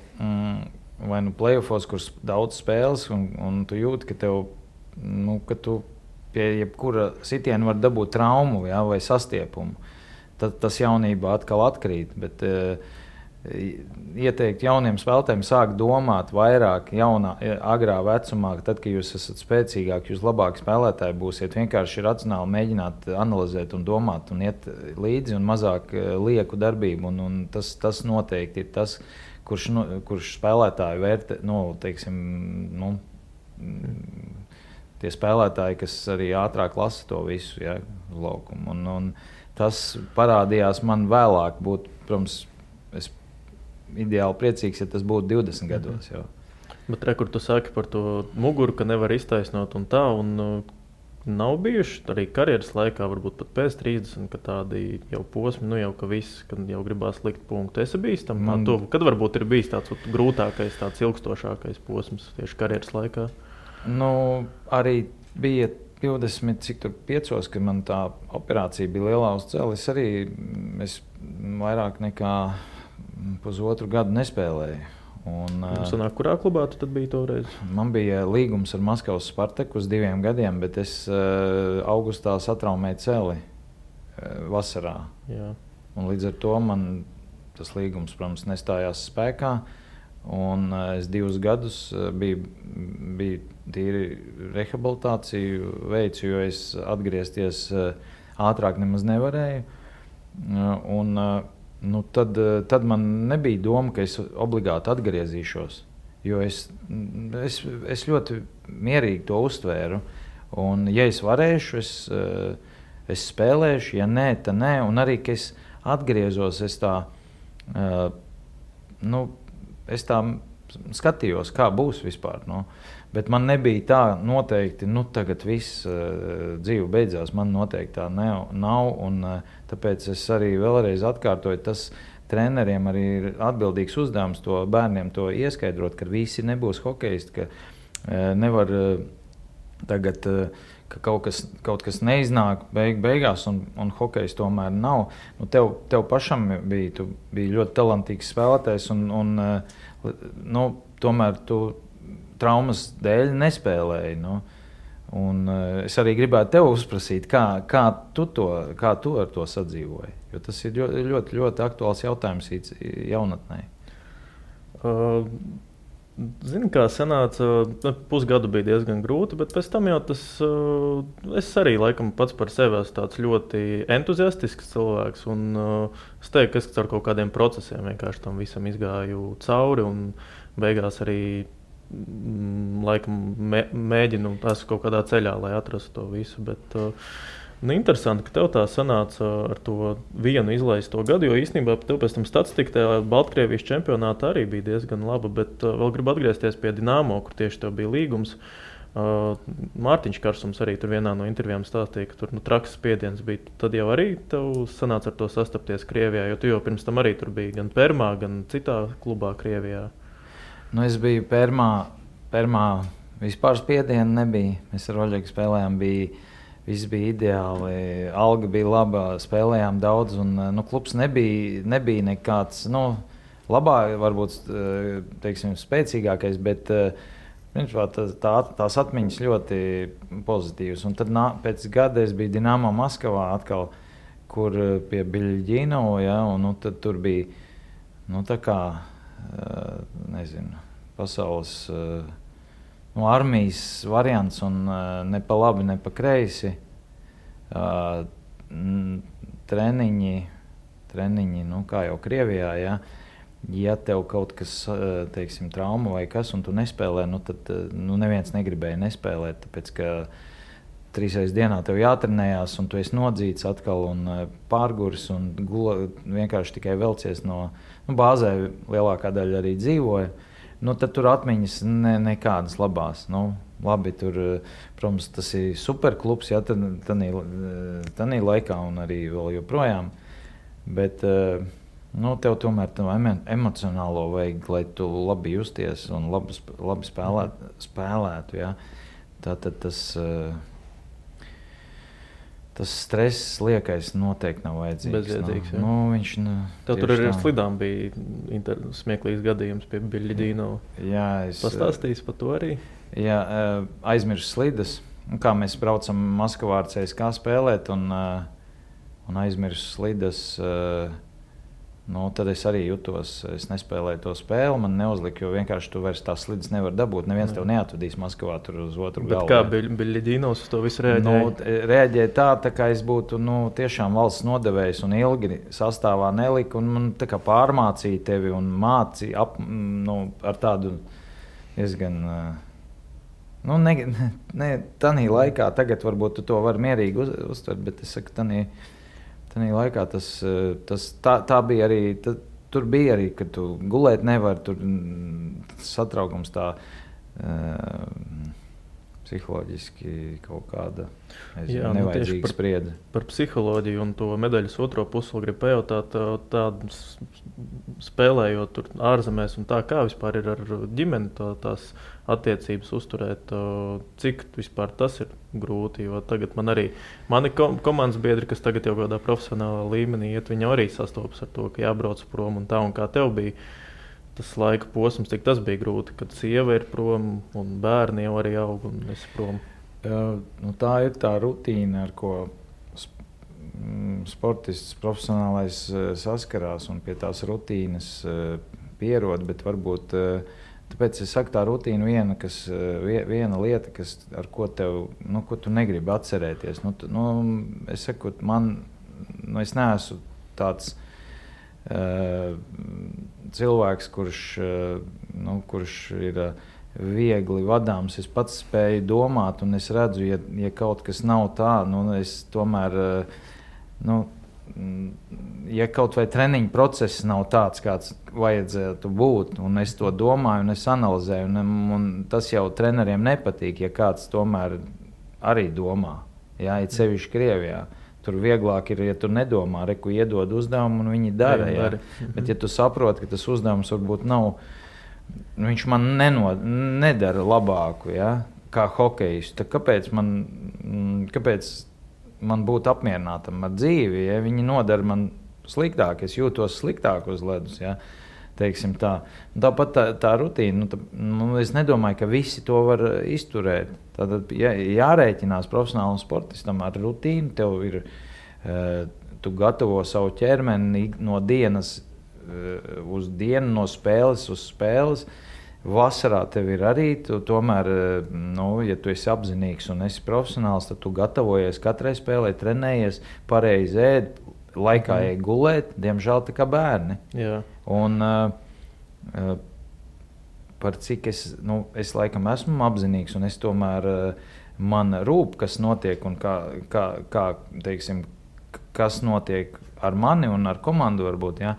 vai playoffos, kur daudz spēles, un tu jūti, ka tev ka tu pie jebkura sitiena var dabūt traumu, ja, vai sastiepumu. Tad tas jaunībā atkal atkrīt. Bet ieteikt jauniem spēlētājiem sākt domāt vairāk agrā vecumā, tad, kad jūs esat spēcīgāki, jūs labāki spēlētāji būsiet. Vienkārši racionāli mēģināt analizēt un domāt un iet līdzi un mazāk lieku darbību. Un tas noteikti ir tas, kurš spēlētāju vērtē, tie spēlētāji, kas arī ātrāk lasa to visu, ja, uz laukumu. Un tas parādījās man vēlāk. Protams, es ideāli priecīgs, ja tas būtu 20 gados. Jau. Bet kur tu saki par to muguru, ka nevar iztaisnot un tā, un nav bijuši arī karjeras laikā, varbūt pat pēc 30, ka tādi jau posmi, jau ka viss, kad jau gribās likt punktu. Esi bijis tam kad varbūt ir bijis tāds grūtākais, tāds ilgstošākais posms tieši karjeras laikā? Arī bija 25, kad man tā operācija bija lielā uz celi. Es vairāk nekā pusotru gadu nespēlēju. Sanāk, kurā klubā tu tad biji toreiz? Man bija līgums ar Maskavas Spartaku uz 2 gadiem, bet es augustā satraumēju celi vasarā. Jā. Un līdz ar to man tas līgums, protams, nestājās spēkā. Un es 2 gadus biju tīri rehabilitāciju veicu, jo es atgriezties ātrāk nemaz nevarēju. Tad man nebija doma, ka es obligāti atgriezīšos, jo es ļoti mierīgi to uztvēru. Un, ja es varēšu, es spēlēšu, ja nē, tad nē. Un arī, ka es atgriezos, es tā skatījos, kā būs vispār. Bet man nebija tā noteikti, tagad viss dzīve beidzās. Man noteikti tā nav. Un, tāpēc es arī vēlreiz atkārtoju, tas treneriem arī ir atbildīgs uzdevums to bērniem to ieskaidrot, ka visi nebūs hokejisti, ka nevar tagad, ka kaut kas neiznāk beigās un hokejs tomēr nav. Tev pašam tu biji ļoti talantīgs spēlētājs un tomēr tu traumas dēļ nespēlēji. Un es arī gribētu tev uzprasīt, kā tu ar to sadzīvoji, jo tas ir ļoti, ļoti aktuāls jautājums jaunatnē. Zini, kā sanāca, pusgadu bija diezgan grūti, bet pēc tam jau es arī laikam pats par sevi esmu tāds ļoti entuziastisks cilvēks, un es teiktu, ka es ar kaut kādiem procesiem vienkārši tam visam izgāju cauri, un beigās arī laikam mēģinu esmu kaut kādā ceļā, lai atrastu to visu, bet interesanti, ka tev tā sanāca ar to vienu izlaisto gadu, jo īstenībā tev pēc tam statistika tajā Baltkrievijas čempionātā arī bija diezgan laba, bet vēl gribu atgriezties pie Dinamo, kur tieši tev bija līgums. Mārtiņš Karsums arī tur vienā no intervijām stāstīja, ka tur traks spiediens bija. Tad jau arī tev sanāca ar to sastapties Krievijā, jo tu jau pirms tam arī tur biji gan Permā, gan citā klubā Krievijā. Es biju Permā, vispār spiedienu nebija. Mēs ar Oļegu spēlējām, viss bija ideāli, alga bija laba, spēlējām daudz, un klubs nebija nekāds, labā, varbūt, teiksim, spēcīgākais, bet tās atmiņas ļoti pozitīvas. Un tad pēc gada es biju Dinamo Maskavā atkal, kur pie Biļģīnova, ja, un tad tur bija, tā kā, nezinu, pasaules armijas variants, un ne pa labi, ne pa kreisi. Treniņi, kā jau Krievijā, ja tev kaut kas, teiksim, trauma vai kas, un tu nespēlē, tad neviens negribēja nespēlēt, tāpēc, ka 3 reizes dienā tev jātrenējās, un tu esi nodzīts atkal un pārguris, un vienkārši tikai velcies no bāzē lielākā daļa arī dzīvoja. tad tur atmiņas nekādas labās. Labi, tur, protams, tas ir superklubs, ja, tanī laikā un arī vēl joprojām. Bet tev tomēr emocionālo vajag, lai tu labi justies un labi spēlētu. Ja. Tātad tas stress liekais noteikti nav vajadzīgs. Bezjēdzīgs, jā. Viņš, tev tur arī ar slidām bija smieklīgs gadījums pie Biļļidīno. Jā, pastāstīs par to arī? Jā, aizmirsu slidas. Kā mēs braucam Maskavā ar CSKA spēlēt un aizmirsu slidas, tad es arī jutos, es nespēlēju to spēli, man neuzlika, jo vienkārši tu vairs tās slidas nevar dabūt. Neviens tev neatvedīs Maskavā tur uz otru galvu. Bet kā Biļļidīnos uz to visu reaģēja? Reaģēja tā kā es būtu tiešām valsts nodevējs un ilgi sastāvā nelika, un man tā kā pārmācīja tevi un mācīja ar tādu diezgan... Tanī laikā, tagad varbūt tu to var mierīgi uztvert, bet es saku, tanī laikā tā bija arī, tur bija arī, ka tu gulēt nevar, tur satraukums tā psiholoģiski kaut kāda nevajadzīga spriedze. Par psiholoģiju un to medaļas otro pusi gribu pajautāt, tādu spēlējot tur ārzemēs un tā, kā vispār ir ar ģimeni tās attiecības uzturēt, cik vispār tas ir grūti, jo tagad mani komandas biedri, kas tagad jau kādā profesionālā līmenī iet, viņi arī sastopas ar to, ka jābrauc prom un tā, un kā tev bija tas laika posms, cik tas bija grūti, kad sieva ir prom un bērni jau arī aug un esi prom? Tā ir tā rutīna, ar ko sportists profesionālais saskarās un pie tās rutīnas pierod, bet varbūt tāpēc es saku, tā rutīna viena lieta, ar ko ko tu negribi atcerēties. Es saku, es neesmu tāds cilvēks, kurš ir viegli vadāms. Es pats spēju domāt, un es redzu, ja kaut kas nav tā, es tomēr, ja kaut vai treniņu process nav tāds, kāds vajadzētu būt, un es to domāju, un es analizēju, un tas jau treneriem nepatīk, ja kāds tomēr arī domā, ja, it sevišķi Krievijā. Tur vieglāk ir, ja tu nedomā, reku iedod uzdevumu, un viņi dara. Ja? Bet, ja tu saproti, ka tas uzdevums varbūt nav, viņš man nedara labāku, ja? Kā hokejistu, tad kāpēc man būt apmierinātam ar dzīvi, ja viņi nodara man sliktāk, es jūtos sliktāk uz ledus, ja? Teiksim tā. Tāpat tā rutīna, es nedomāju, ka visi to var izturēt. Tātad jārēķinās profesionālam sportistam ar rutīnu, tev ir, tu gatavo savu ķermeni no dienas uz dienu, no spēles uz spēles. Vasarā tev ir arī, tomēr, ja tu esi apzinīgs un esi profesionāls, tad tu gatavojies katrai spēlē, trenējies, pareizi ēd, laikā ej gulēt, diemžēl tā kā bērni. Jā. Un par cik es laikam esmu apzinīgs, un es tomēr man rūp, kas notiek un kā teiksim, kas notiek ar mani un ar komandu varbūt, ja,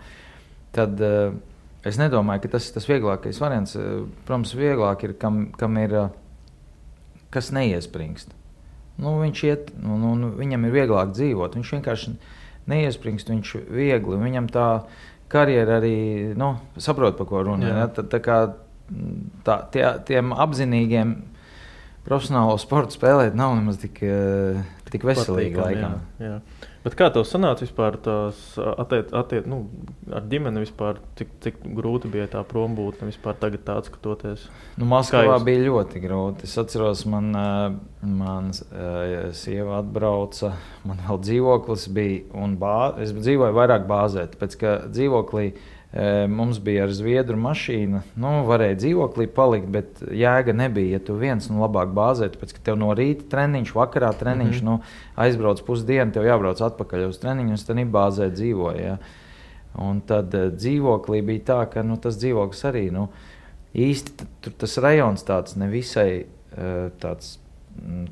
tad es nedomāju, ka tas ir tas vieglākais variants. Protams, vieglāk ir, kam ir, kas neiespringst. Viņš iet, viņam ir vieglāk dzīvot, viņš vienkārši neiespringst, viņš viegli, viņam tā karjera arī, saprot, pa ko runā. Ja? Tā kā tiem apzinīgiem profesionālo sportu spēlēt nav nemaz tik veselīgi laikam. Jā. Bet kā tev sanāca vispār tās ar ģimeni vispār, cik grūti bija tā prombūtne vispār tagad tā atskatoties? Maskavā bija ļoti grūti. Es atceros, man sieva atbrauca, man vēl dzīvoklis bija, un es dzīvoju vairāk bāzē, tāpēc, ka dzīvoklī mums bija ar zviedru mašīna, varēja dzīvoklī palikt, bet jēga nebija, ja tu viens labāk bāzēt, tāpēc, ka tev no rīta treniņš, vakarā treniņš, aizbrauc pusdienu, tev jābrauc atpakaļ uz treniņu, un tad bāzē dzīvoja. Ja. Un tad dzīvoklī bija tā, ka tas dzīvoklis arī, īsti tas rajons tāds nevisai tāds,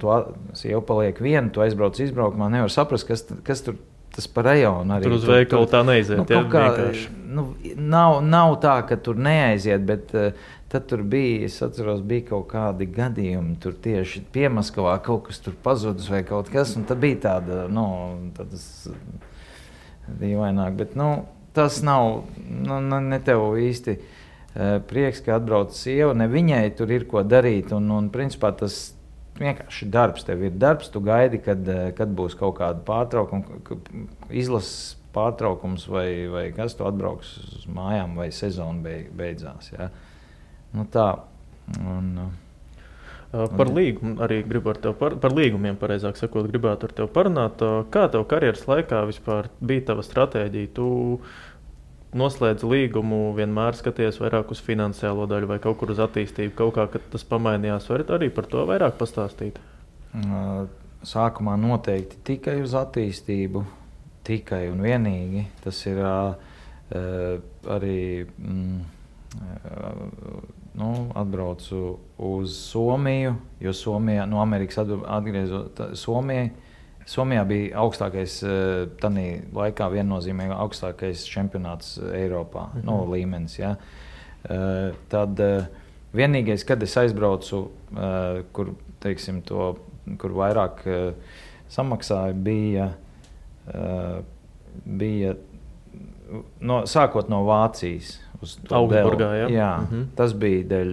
tu sieva paliek viena, tu aizbrauc izbraukumā, nevar saprast, kas tur tas par rajonu arī. Tur uz veikalu tā neaiziet. Nav tā, ka tur neaiziet, bet tad tur bija, es atceros, bija kaut kādi gadījumi, tur tieši Piemaskavā kaut kas tur pazudis vai kaut kas, un tad bija tāda, tādas dīvaināk, bet, tas nav, ne tev īsti prieks, ka atbrauc sieva, ne viņai tur ir ko darīt, un principā tas vienkārši darbs, tev ir darbs, tu gaidi, kad būs kaut kāda pārtraukuma, izlases pārtraukums vai kas, tu atbrauks uz mājām vai sezona beidzās, ja. Tā. Par līgumu arī gribu ar tev par līgumiem, pareizāk sakot, gribētu ar tev parunāt. Kā tev karjeras laikā vispār bija tava stratēģija? Tu noslēdz līgumu, vienmēr skaties vairāk uz finansiālo daļu vai kaut kur uz attīstību, kaut kā, kad tas pamainījās, varat arī par to vairāk pastāstīt? Sākumā noteikti tikai uz attīstību, tikai un vienīgi. Tas ir arī... atbraucu uz Somiju, jo Somijā, no Amerikas atgriezot Somijai. Somijā bija augstākais, tanī laikā viennozīmīgi augstākais čempionāts Eiropā, līmenis, ja. Tad vienīgais, kad es aizbraucu, kur, teiksim, kur vairāk samaksāja, bija sākot no Vācijas. Augsburgā, ja? Jā, tas bija dēļ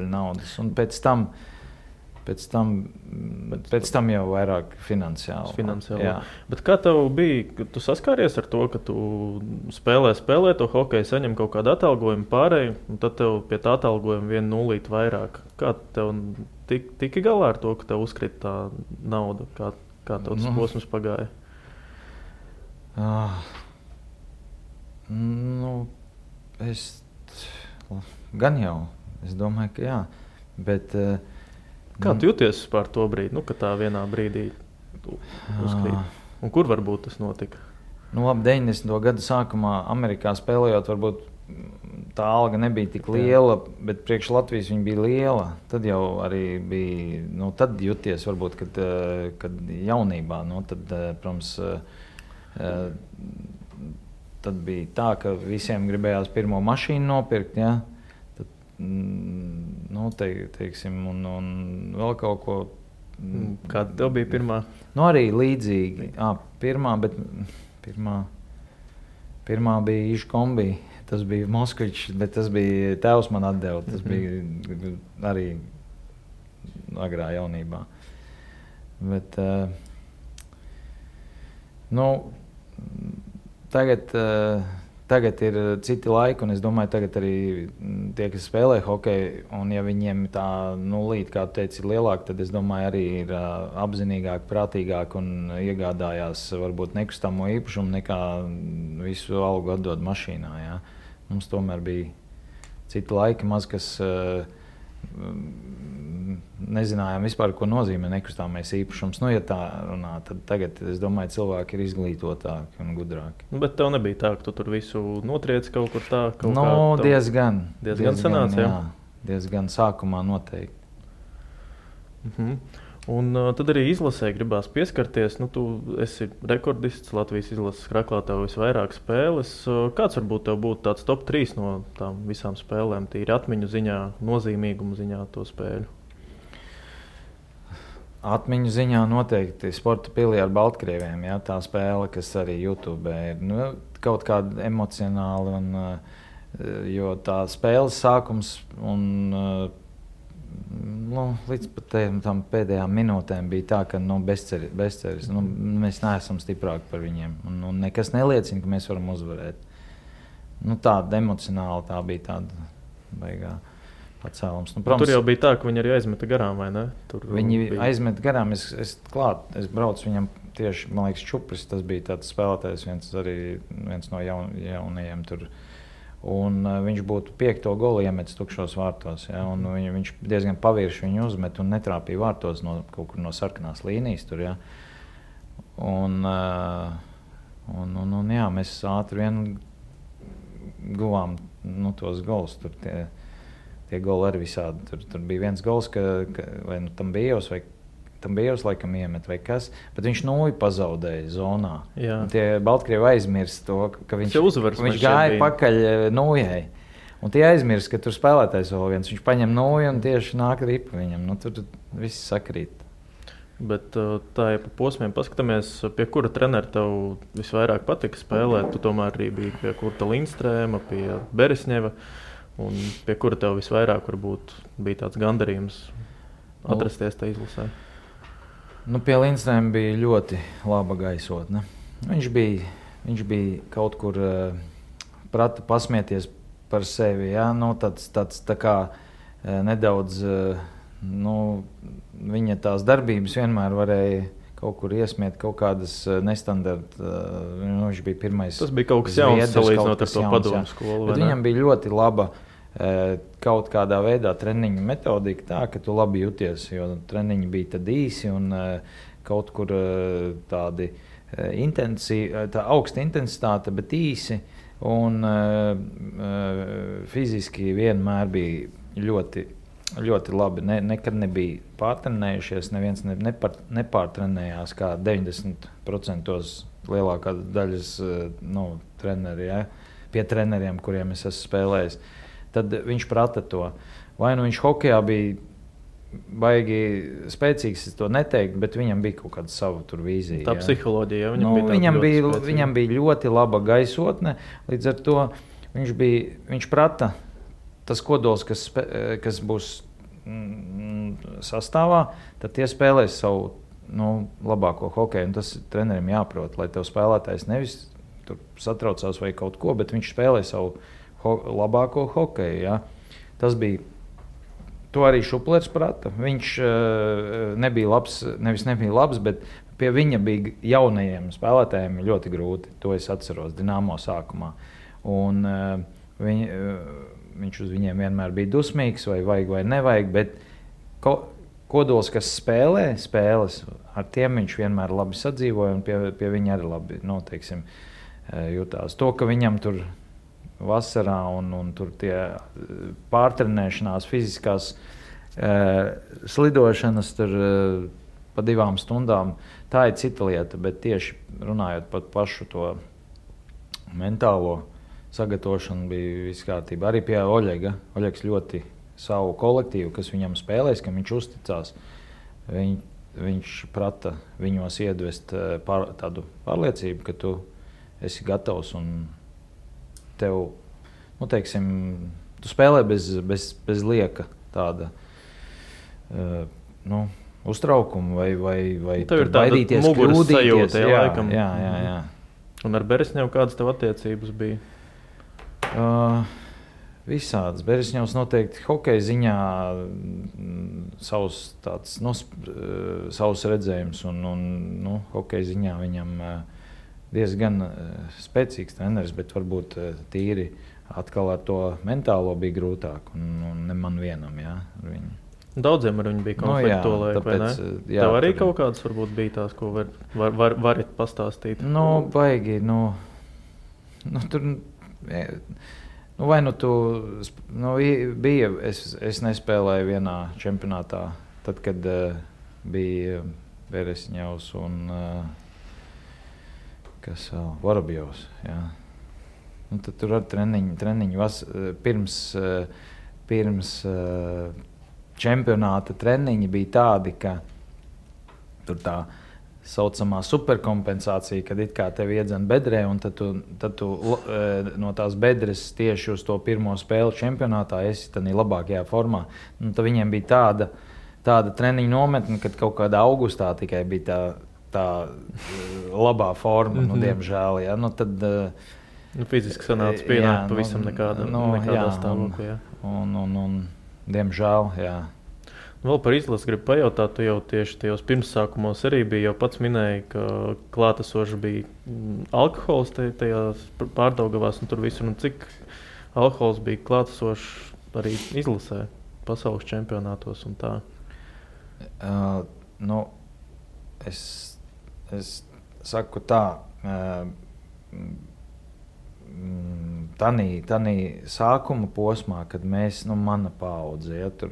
naudas. Un pēc tam jau vairāk finansiāli. Jā. Bet kā tev bija, tu saskāries ar to, ka tu spēlē to hokeju, saņem kaut kādu atalgojumu pārēju, un tad tev pie tā atalgojuma 1 nulīti vairāk. Kā tev tiki galā ar to, ka tev uzkrita tā nauda? Kā tev tas posms pagāja? Es domāju, ka jā, bet... Kā tu jūties par to brīdi, ka tā vienā brīdī uzkrīt? Un kur varbūt tas notika? Ap 90. gadu sākumā Amerikā spēlējot, varbūt tā alga nebija tik liela, bet priekš Latvijas viņa bija liela. Tad jau arī bija, tad jūties varbūt, kad jaunībā, tad, protams, tad bija tā, ka visiem gribējās pirmo mašīnu nopirkt, ja? Tad, teiksim, un vēl kaut ko. Kāda tev bija pirmā? Arī līdzīgi. Pirmā bija Iškombi. Tas bija Moskvičs, bet tas bija tēvs man atdeva. Tas bija arī agrā jaunībā. Bet, Tagad ir citi laiki, un es domāju, tagad arī tie, kas spēlē hokeju, un ja viņiem tā nulīte, kā tu teici, ir lielāka, tad es domāju, arī ir apzinīgāk, prātīgāk un iegādājās varbūt nekustamo īpašumu nekā visu algu atdod mašīnā. Ja? Mums tomēr bija citi laiki, maz kas nezinājām vispār, ko nozīmē nekustamais īpašums. Ja tā runā, tad tagad, es domāju, cilvēki ir izglītotāki un gudrāki. Bet tev nebija tā, ka tu tur visu notriec kaut kur tā? Diezgan sanāca, jā. Diezgan sākumā noteikti. Un tad arī izlasē gribās pieskarties. Tu esi rekordists, Latvijas izlases kraklā, tev visvairāk spēles. Kāds varbūt tev būtu tāds top 3 no tām visām spēlēm, tīri atmiņu ziņā, nozīmīgumu ziņā to spēļu? Atmiņu ziņā noteikti Sporta pilī ar Baltkrieviem, ja, tā spēle, kas arī YouTube ir kaut kāda emocionāla, jo tā spēles sākums un līdz pat tam pēdējām minūtēm bija tā, ka bezceris. Mēs neesam stiprāki par viņiem un nekas neliecina, ka mēs varam uzvarēt. Tāda emocionāla tā bija tāda baigā pacēlums. Protams, tur jau bija tā, ka viņi arī aizmeta garām, vai ne? Viņi aizmeta garām, es braucu viņam tieši, man liekas, Čupris, tas bija tāds spēlētājs, viens no jaunajiem tur. Un viņš būtu 5. golu iemetis tukšos vārtos, ja, un viņš diezgan pavirši viņu uzmet un netrāpīja vārtos kaut kur no sarkanās līnijas tur, ja. Un jā, mēs ātri vien guvām tos golus, tur tie goli arī visādi, tur bija viens gols, vai tam bijos laikam iemet vai kas, bet viņš nulli pazaudēja zonā. Jā. Un tie Baltkrievi aizmirst to, ka viņš uzvars, gāja pakaļ nuljai. Un tie aizmirst, ka tur spēlētājs vēl viens. Viņš paņem nūju un tieši nāk ripa viņam. Nu, tur viss sakrīt. Bet tā, ja pa posmiem paskatāmies, pie kura trenera tev visvairāk patika spēlēt, tu tomēr arī biji pie Kurta Lindstrēma, pie Beresņeva, un pie kura tev visvairāk varbūt bija tāds gandarījums atrasties tā izlasē? Nu, pie Lindstrēma bija ļoti laba gaisotne. Viņš bija kaut kur prata pasmieties par sevi, ja? Nu, tāds tā kā nedaudz... viņa tās darbības vienmēr varēja kaut kur iesmiet kaut kādas nestandarta. Viņš bija pirmais. Tas bija kaut kas jauns salīdzinot ar to padomu skolu. Bet viņam bija ļoti laba kaut kādā veidā treniņu metodika tā, ka tu labi jūties, jo treniņi bija tad īsi un kaut kur tādi tā augsta intensitāte, bet īsi un fiziski vienmēr bija ļoti labi. Nekad nebija pārtrenējušies, neviens nepārtrenējās kā 90% lielākā daļas treneri, ja? Pie treneriem, kuriem es esmu spēlējis. Tad viņš prata to. Vai nu viņš hokejā bija baigi spēcīgs, es to neteiktu, bet viņam bija kaut kāda sava tur vīzija. Tā psiholoģija, viņam bija ļoti laba gaisotne, līdz ar to viņš prata tas kodols, kas būs sastāvā, tad tie spēlēs savu labāko hokeju. Un tas trenerim jāprot, lai tev spēlētājs nevis tur satraucās vai kaut ko, bet viņš spēlē savu labāko hokeju. Ja? Tas bija, to arī Šuplers prata. Viņš nebija labs, bet pie viņa bija jaunajiem spēlētājiem ļoti grūti. To es atceros Dinamo sākumā. Un viņš uz viņiem vienmēr bija dusmīgs, vai vajag vai nevajag, bet kodols, kas spēlē spēles, ar tiem viņš vienmēr labi sadzīvoja un pie viņa arī labi jutās. To, ka viņam tur vasarā un tur tie pārtrenēšanās, fiziskās slidošanas tur pa 2 stundām, tā ir cita lieta, bet tieši runājot par pašu to mentālo sagatavošana bija viss kārtībā. Arī pie Oļega. Oļegs ļoti savu kolektīvu, kas viņam spēlēs, kam viņš uzticās. Viņš prata viņos iedvest tādu pārliecību, ka tu esi gatavs un tev, tu spēlē bez lieka tāda uztraukuma vai baidīties, kļūdīties. Jā. Un ar Beresņevu kādas tev attiecības bija? Visādas. Beresņevs noteikti hokeja ziņā savs redzējums un hokeja ziņā viņam diezgan spēcīgs treneris, bet varbūt tīri atkal ar to mentālo bija grūtāk un ne man vienam, jā, ar viņu. Daudziem ar viņu bija konflikti vai ne? Tev arī kaut kādas varbūt bija tās, ko varat pastāstīt? Baigi, tur... vai tu bija, es nespēlēju vienā čempionātā, tad, kad bija Beresņevs un kas vēl, Vorobjovs, jā. Tad tur ar treniņu pirms čempionāta treniņi bija tādi, ka tur tā saucamā superkompensācija, kad it kā tevi iedzen bedrē, un tad tu no tās bedres tieši uz to pirmo spēli čempionātā esi tādā labākajā formā. Tad viņiem bija tāda treniņu nometne, kad kaut kādā augustā tikai bija tā labā forma, diemžēl. Ja? Tad, fiziski sanāca pienākt pavisam nekādā stāvoklī. Un diemžēl, jā. Vēl par izlasi gribu pajautāt, tu jau tieši tajos pirmsākumos arī biji, jau pats minēji, ka klātesoši bija alkohols tajās Pārdaugavās un tur visur. Un cik alkohols bija klātesoši arī izlasē, pasaules čempionātos un tā? Es saku tā, Tanī sākuma posmā, kad mēs, mana paudze, ja, tur,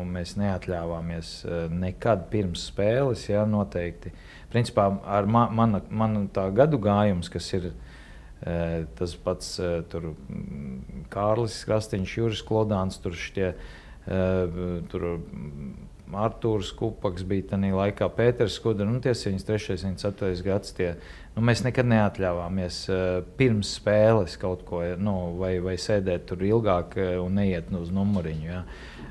mēs neatļāvāmies nekad pirms spēles, ja, noteikti. Principā ar mana tā gadu gājums, kas ir tas pats tur Kārlis Krastīņš, Juris Klodāns, tur Artūrs Kupaks bija tajā laikā, Pēters Skudra, tie 73. 74. gads. Mēs nekad neatļāvāmies pirms spēles kaut ko, vai sēdēt tur ilgāk un neiet uz numuriņu. Ja.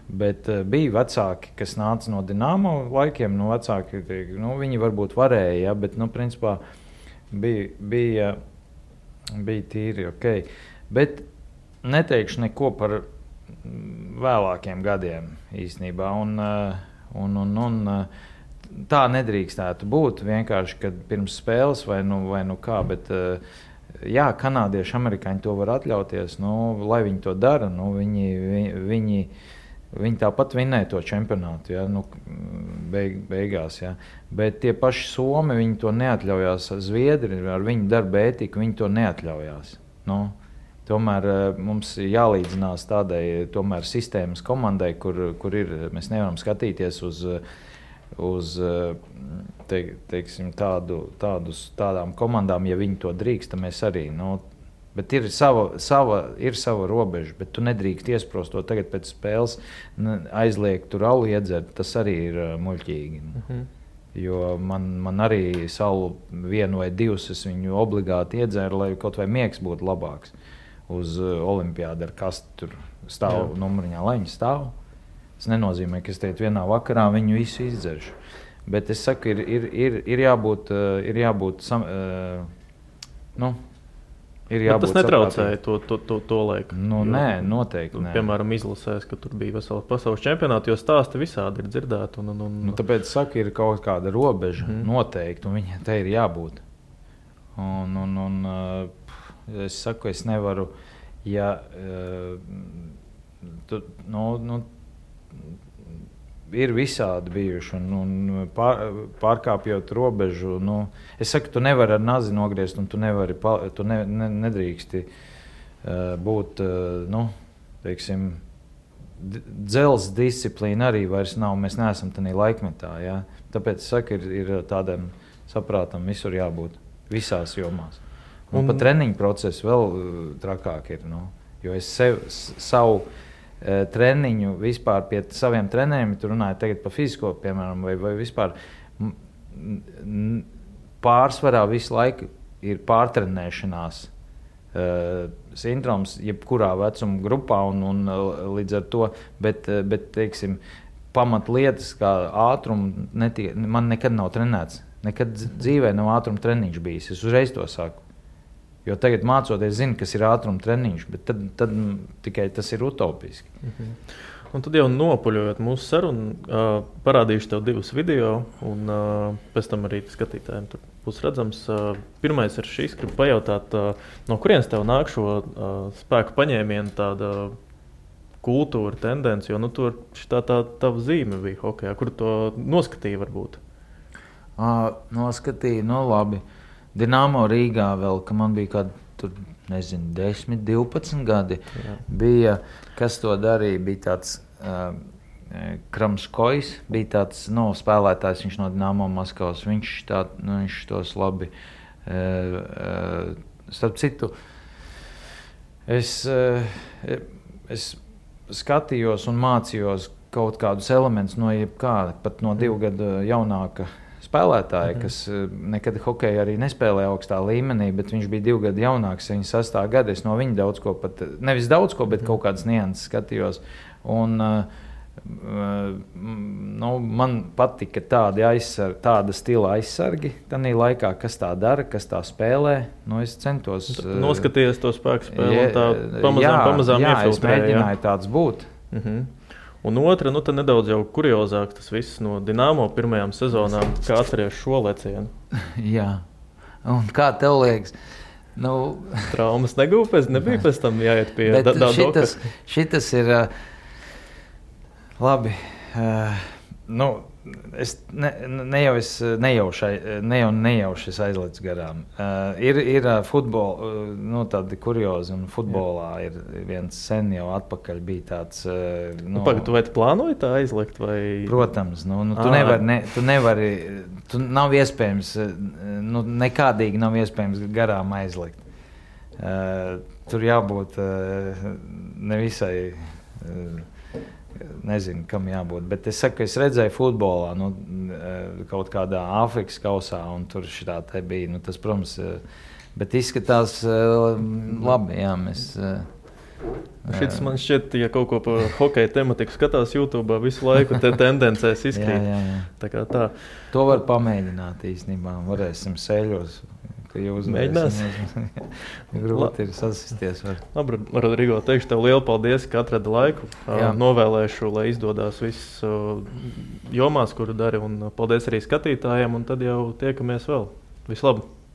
Bet bija vecāki, kas nāca no Dinamo laikiem, vecāki, viņi varbūt varēja, ja, bet, principā, bija tīri ok. Bet neteikšu neko par vēlākiem gadiem īstenībā. Un tā nedrīkstētu būt vienkārši, kad pirms spēles vai kā, bet jā, kanādieši, amerikāņi to var atļauties, lai viņi to dara, viņi tāpat vinnēja to čempionātu, ja, beigās, ja. Bet tie paši Somi, viņi to neatļaujās, Zviedri ar viņu darba ētiku, viņi to neatļaujās. Tomēr mums jālīdzinās tādai tomēr sistēmas komandai, kur ir, mēs nevaram skatīties uz teiksim, tādām komandām, ja viņi to drīkst, tad mēs arī. Bet ir sava robeža, bet tu nedrīkst iesprost to tagad pēc spēles, aizliegt tur alu iedzert, tas arī ir muļķīgi. Jo man arī salu vienu vai divus, es viņu obligāti iedzēru, lai kaut vai miegs būtu labāks. Uz olimpiādu ar kastu tur stāv numuriņā, lai viņi stāv. Tas nenozīmē, ka es teikt vienā vakarā viņu visu izdzeršu. Bet es saku, ir jābūt ir jābūt tas netraucēja to laiku. Nē, noteikti nē. Piemēram, izlasēs, ka tur bija vesels pasaules čempionāti, jo stāsti visādi ir dzirdēti. Tāpēc saku, ir kaut kāda robeža noteikti, un viņai te ir jābūt. Es saku, es nevaru, ja ir visādi bijuši, un pārkāpjot robežu, es saku, tu nevari ar nazi nogriezt, un tu nedrīksti būt, teiksim, dzels disciplīna arī vairs nav, mēs neesam tādā laikmetā, ja? Tāpēc es saku, ir tādam saprātam visur jābūt, visās jomās. Un pat treniņu procesu vēl trakāk ir. Jo es savu treniņu vispār pie saviem treneriem, tu runāji tagad par fizisko, piemēram, vai vispār pārsvarā visu laiku ir pārtrenēšanās sindroms, jebkurā vecuma grupā, un līdz ar to, bet teiksim, pamatlietas kā ātrumu man nekad nav trenēts. Nekad dzīvē nav ātruma treniņš bijis. Es uzreiz to saku. Jo tagad mācoties, zinu, kas ir ātruma treniņš, bet tad tikai tas ir utopiski. Un tad jau nopuļojot mūsu sarunu, parādīšu tev 2 video, un pēc tam arī skatītājiem tur būs redzams. Pirmais ir šis, gribu pajautāt, no kurienes tev nāk šo spēku paņēmienu tāda kultūra, tendence, jo tur tā tava zīme bija hokejā, kur to noskatīja varbūt? Noskatīja, labi. Dinamo Rīgā vēl, ka man bija kādi, 10, 12 gadi. Jā. Bija, kas to darīja, bija tāds Kramskojs, bija tāds spēlētājs, viņš no Dinamo Maskavas, viņš tos labi. Starp citu, es skatījos un mācījos kaut kādus elementus no jebkāda, pat no 2 gadu jaunāka spēlētāji, kas nekad hokeju arī nespēlēja augstā līmenī, bet viņš bija 2 gadu jaunāks, 76. gada. Es no viņa daudz ko, nevis daudz ko, bet kaut kādas nianses skatījos. Un, man patika tāda stila aizsargi tanī laikā, kas tā dara, kas tā spēlē. Es centos... Noskaties to spēku spēli un tā pamazām iefiltrēja. Jā, es mēģināju tāds būt. Un otra, tad nedaudz jau kuriozāk tas viss no Dinamo pirmajām sezonām, kā atceries šo lecienu. Jā, un kā tev liekas? Traumas nebija pēc tam jāiet pie Dadoka. Šitas ir labi. Es nejauši aizlecu garām. Ir futbola, tādi kuriozi, un futbolā ir viens sen jau atpakaļ bija tāds... Tu vai tu plānoji tā aizlikt? Vai... Protams, tu nevari, nav iespējams, nekādīgi nav iespējams garām aizlikt. tur jābūt nevisai, nezinu, kam jābūt. Bet es saku, ka es redzēju futbolā, kaut kādā Āfrikas kausā, un tur šitā te bija. Tas, protams, bet izskatās labi, jā, mēs... Šis man šķiet, ja kaut ko par hokeja tematiku skatās YouTube, visu laiku te tendencēs izkrīt. Jā. Tā kā tā. To var pamēģināt īstenībā. Varēsim sēļos, ka jūs mēģināsim. Grūti ir sasisties. Labi, Rodrigo, teikšu tev lielu paldies, ka atradi laiku. Novēlēšu, lai izdodās viss jomās, kuru dari. Un paldies arī skatītājiem, un tad jau tiekamies vēl. Vislabāk!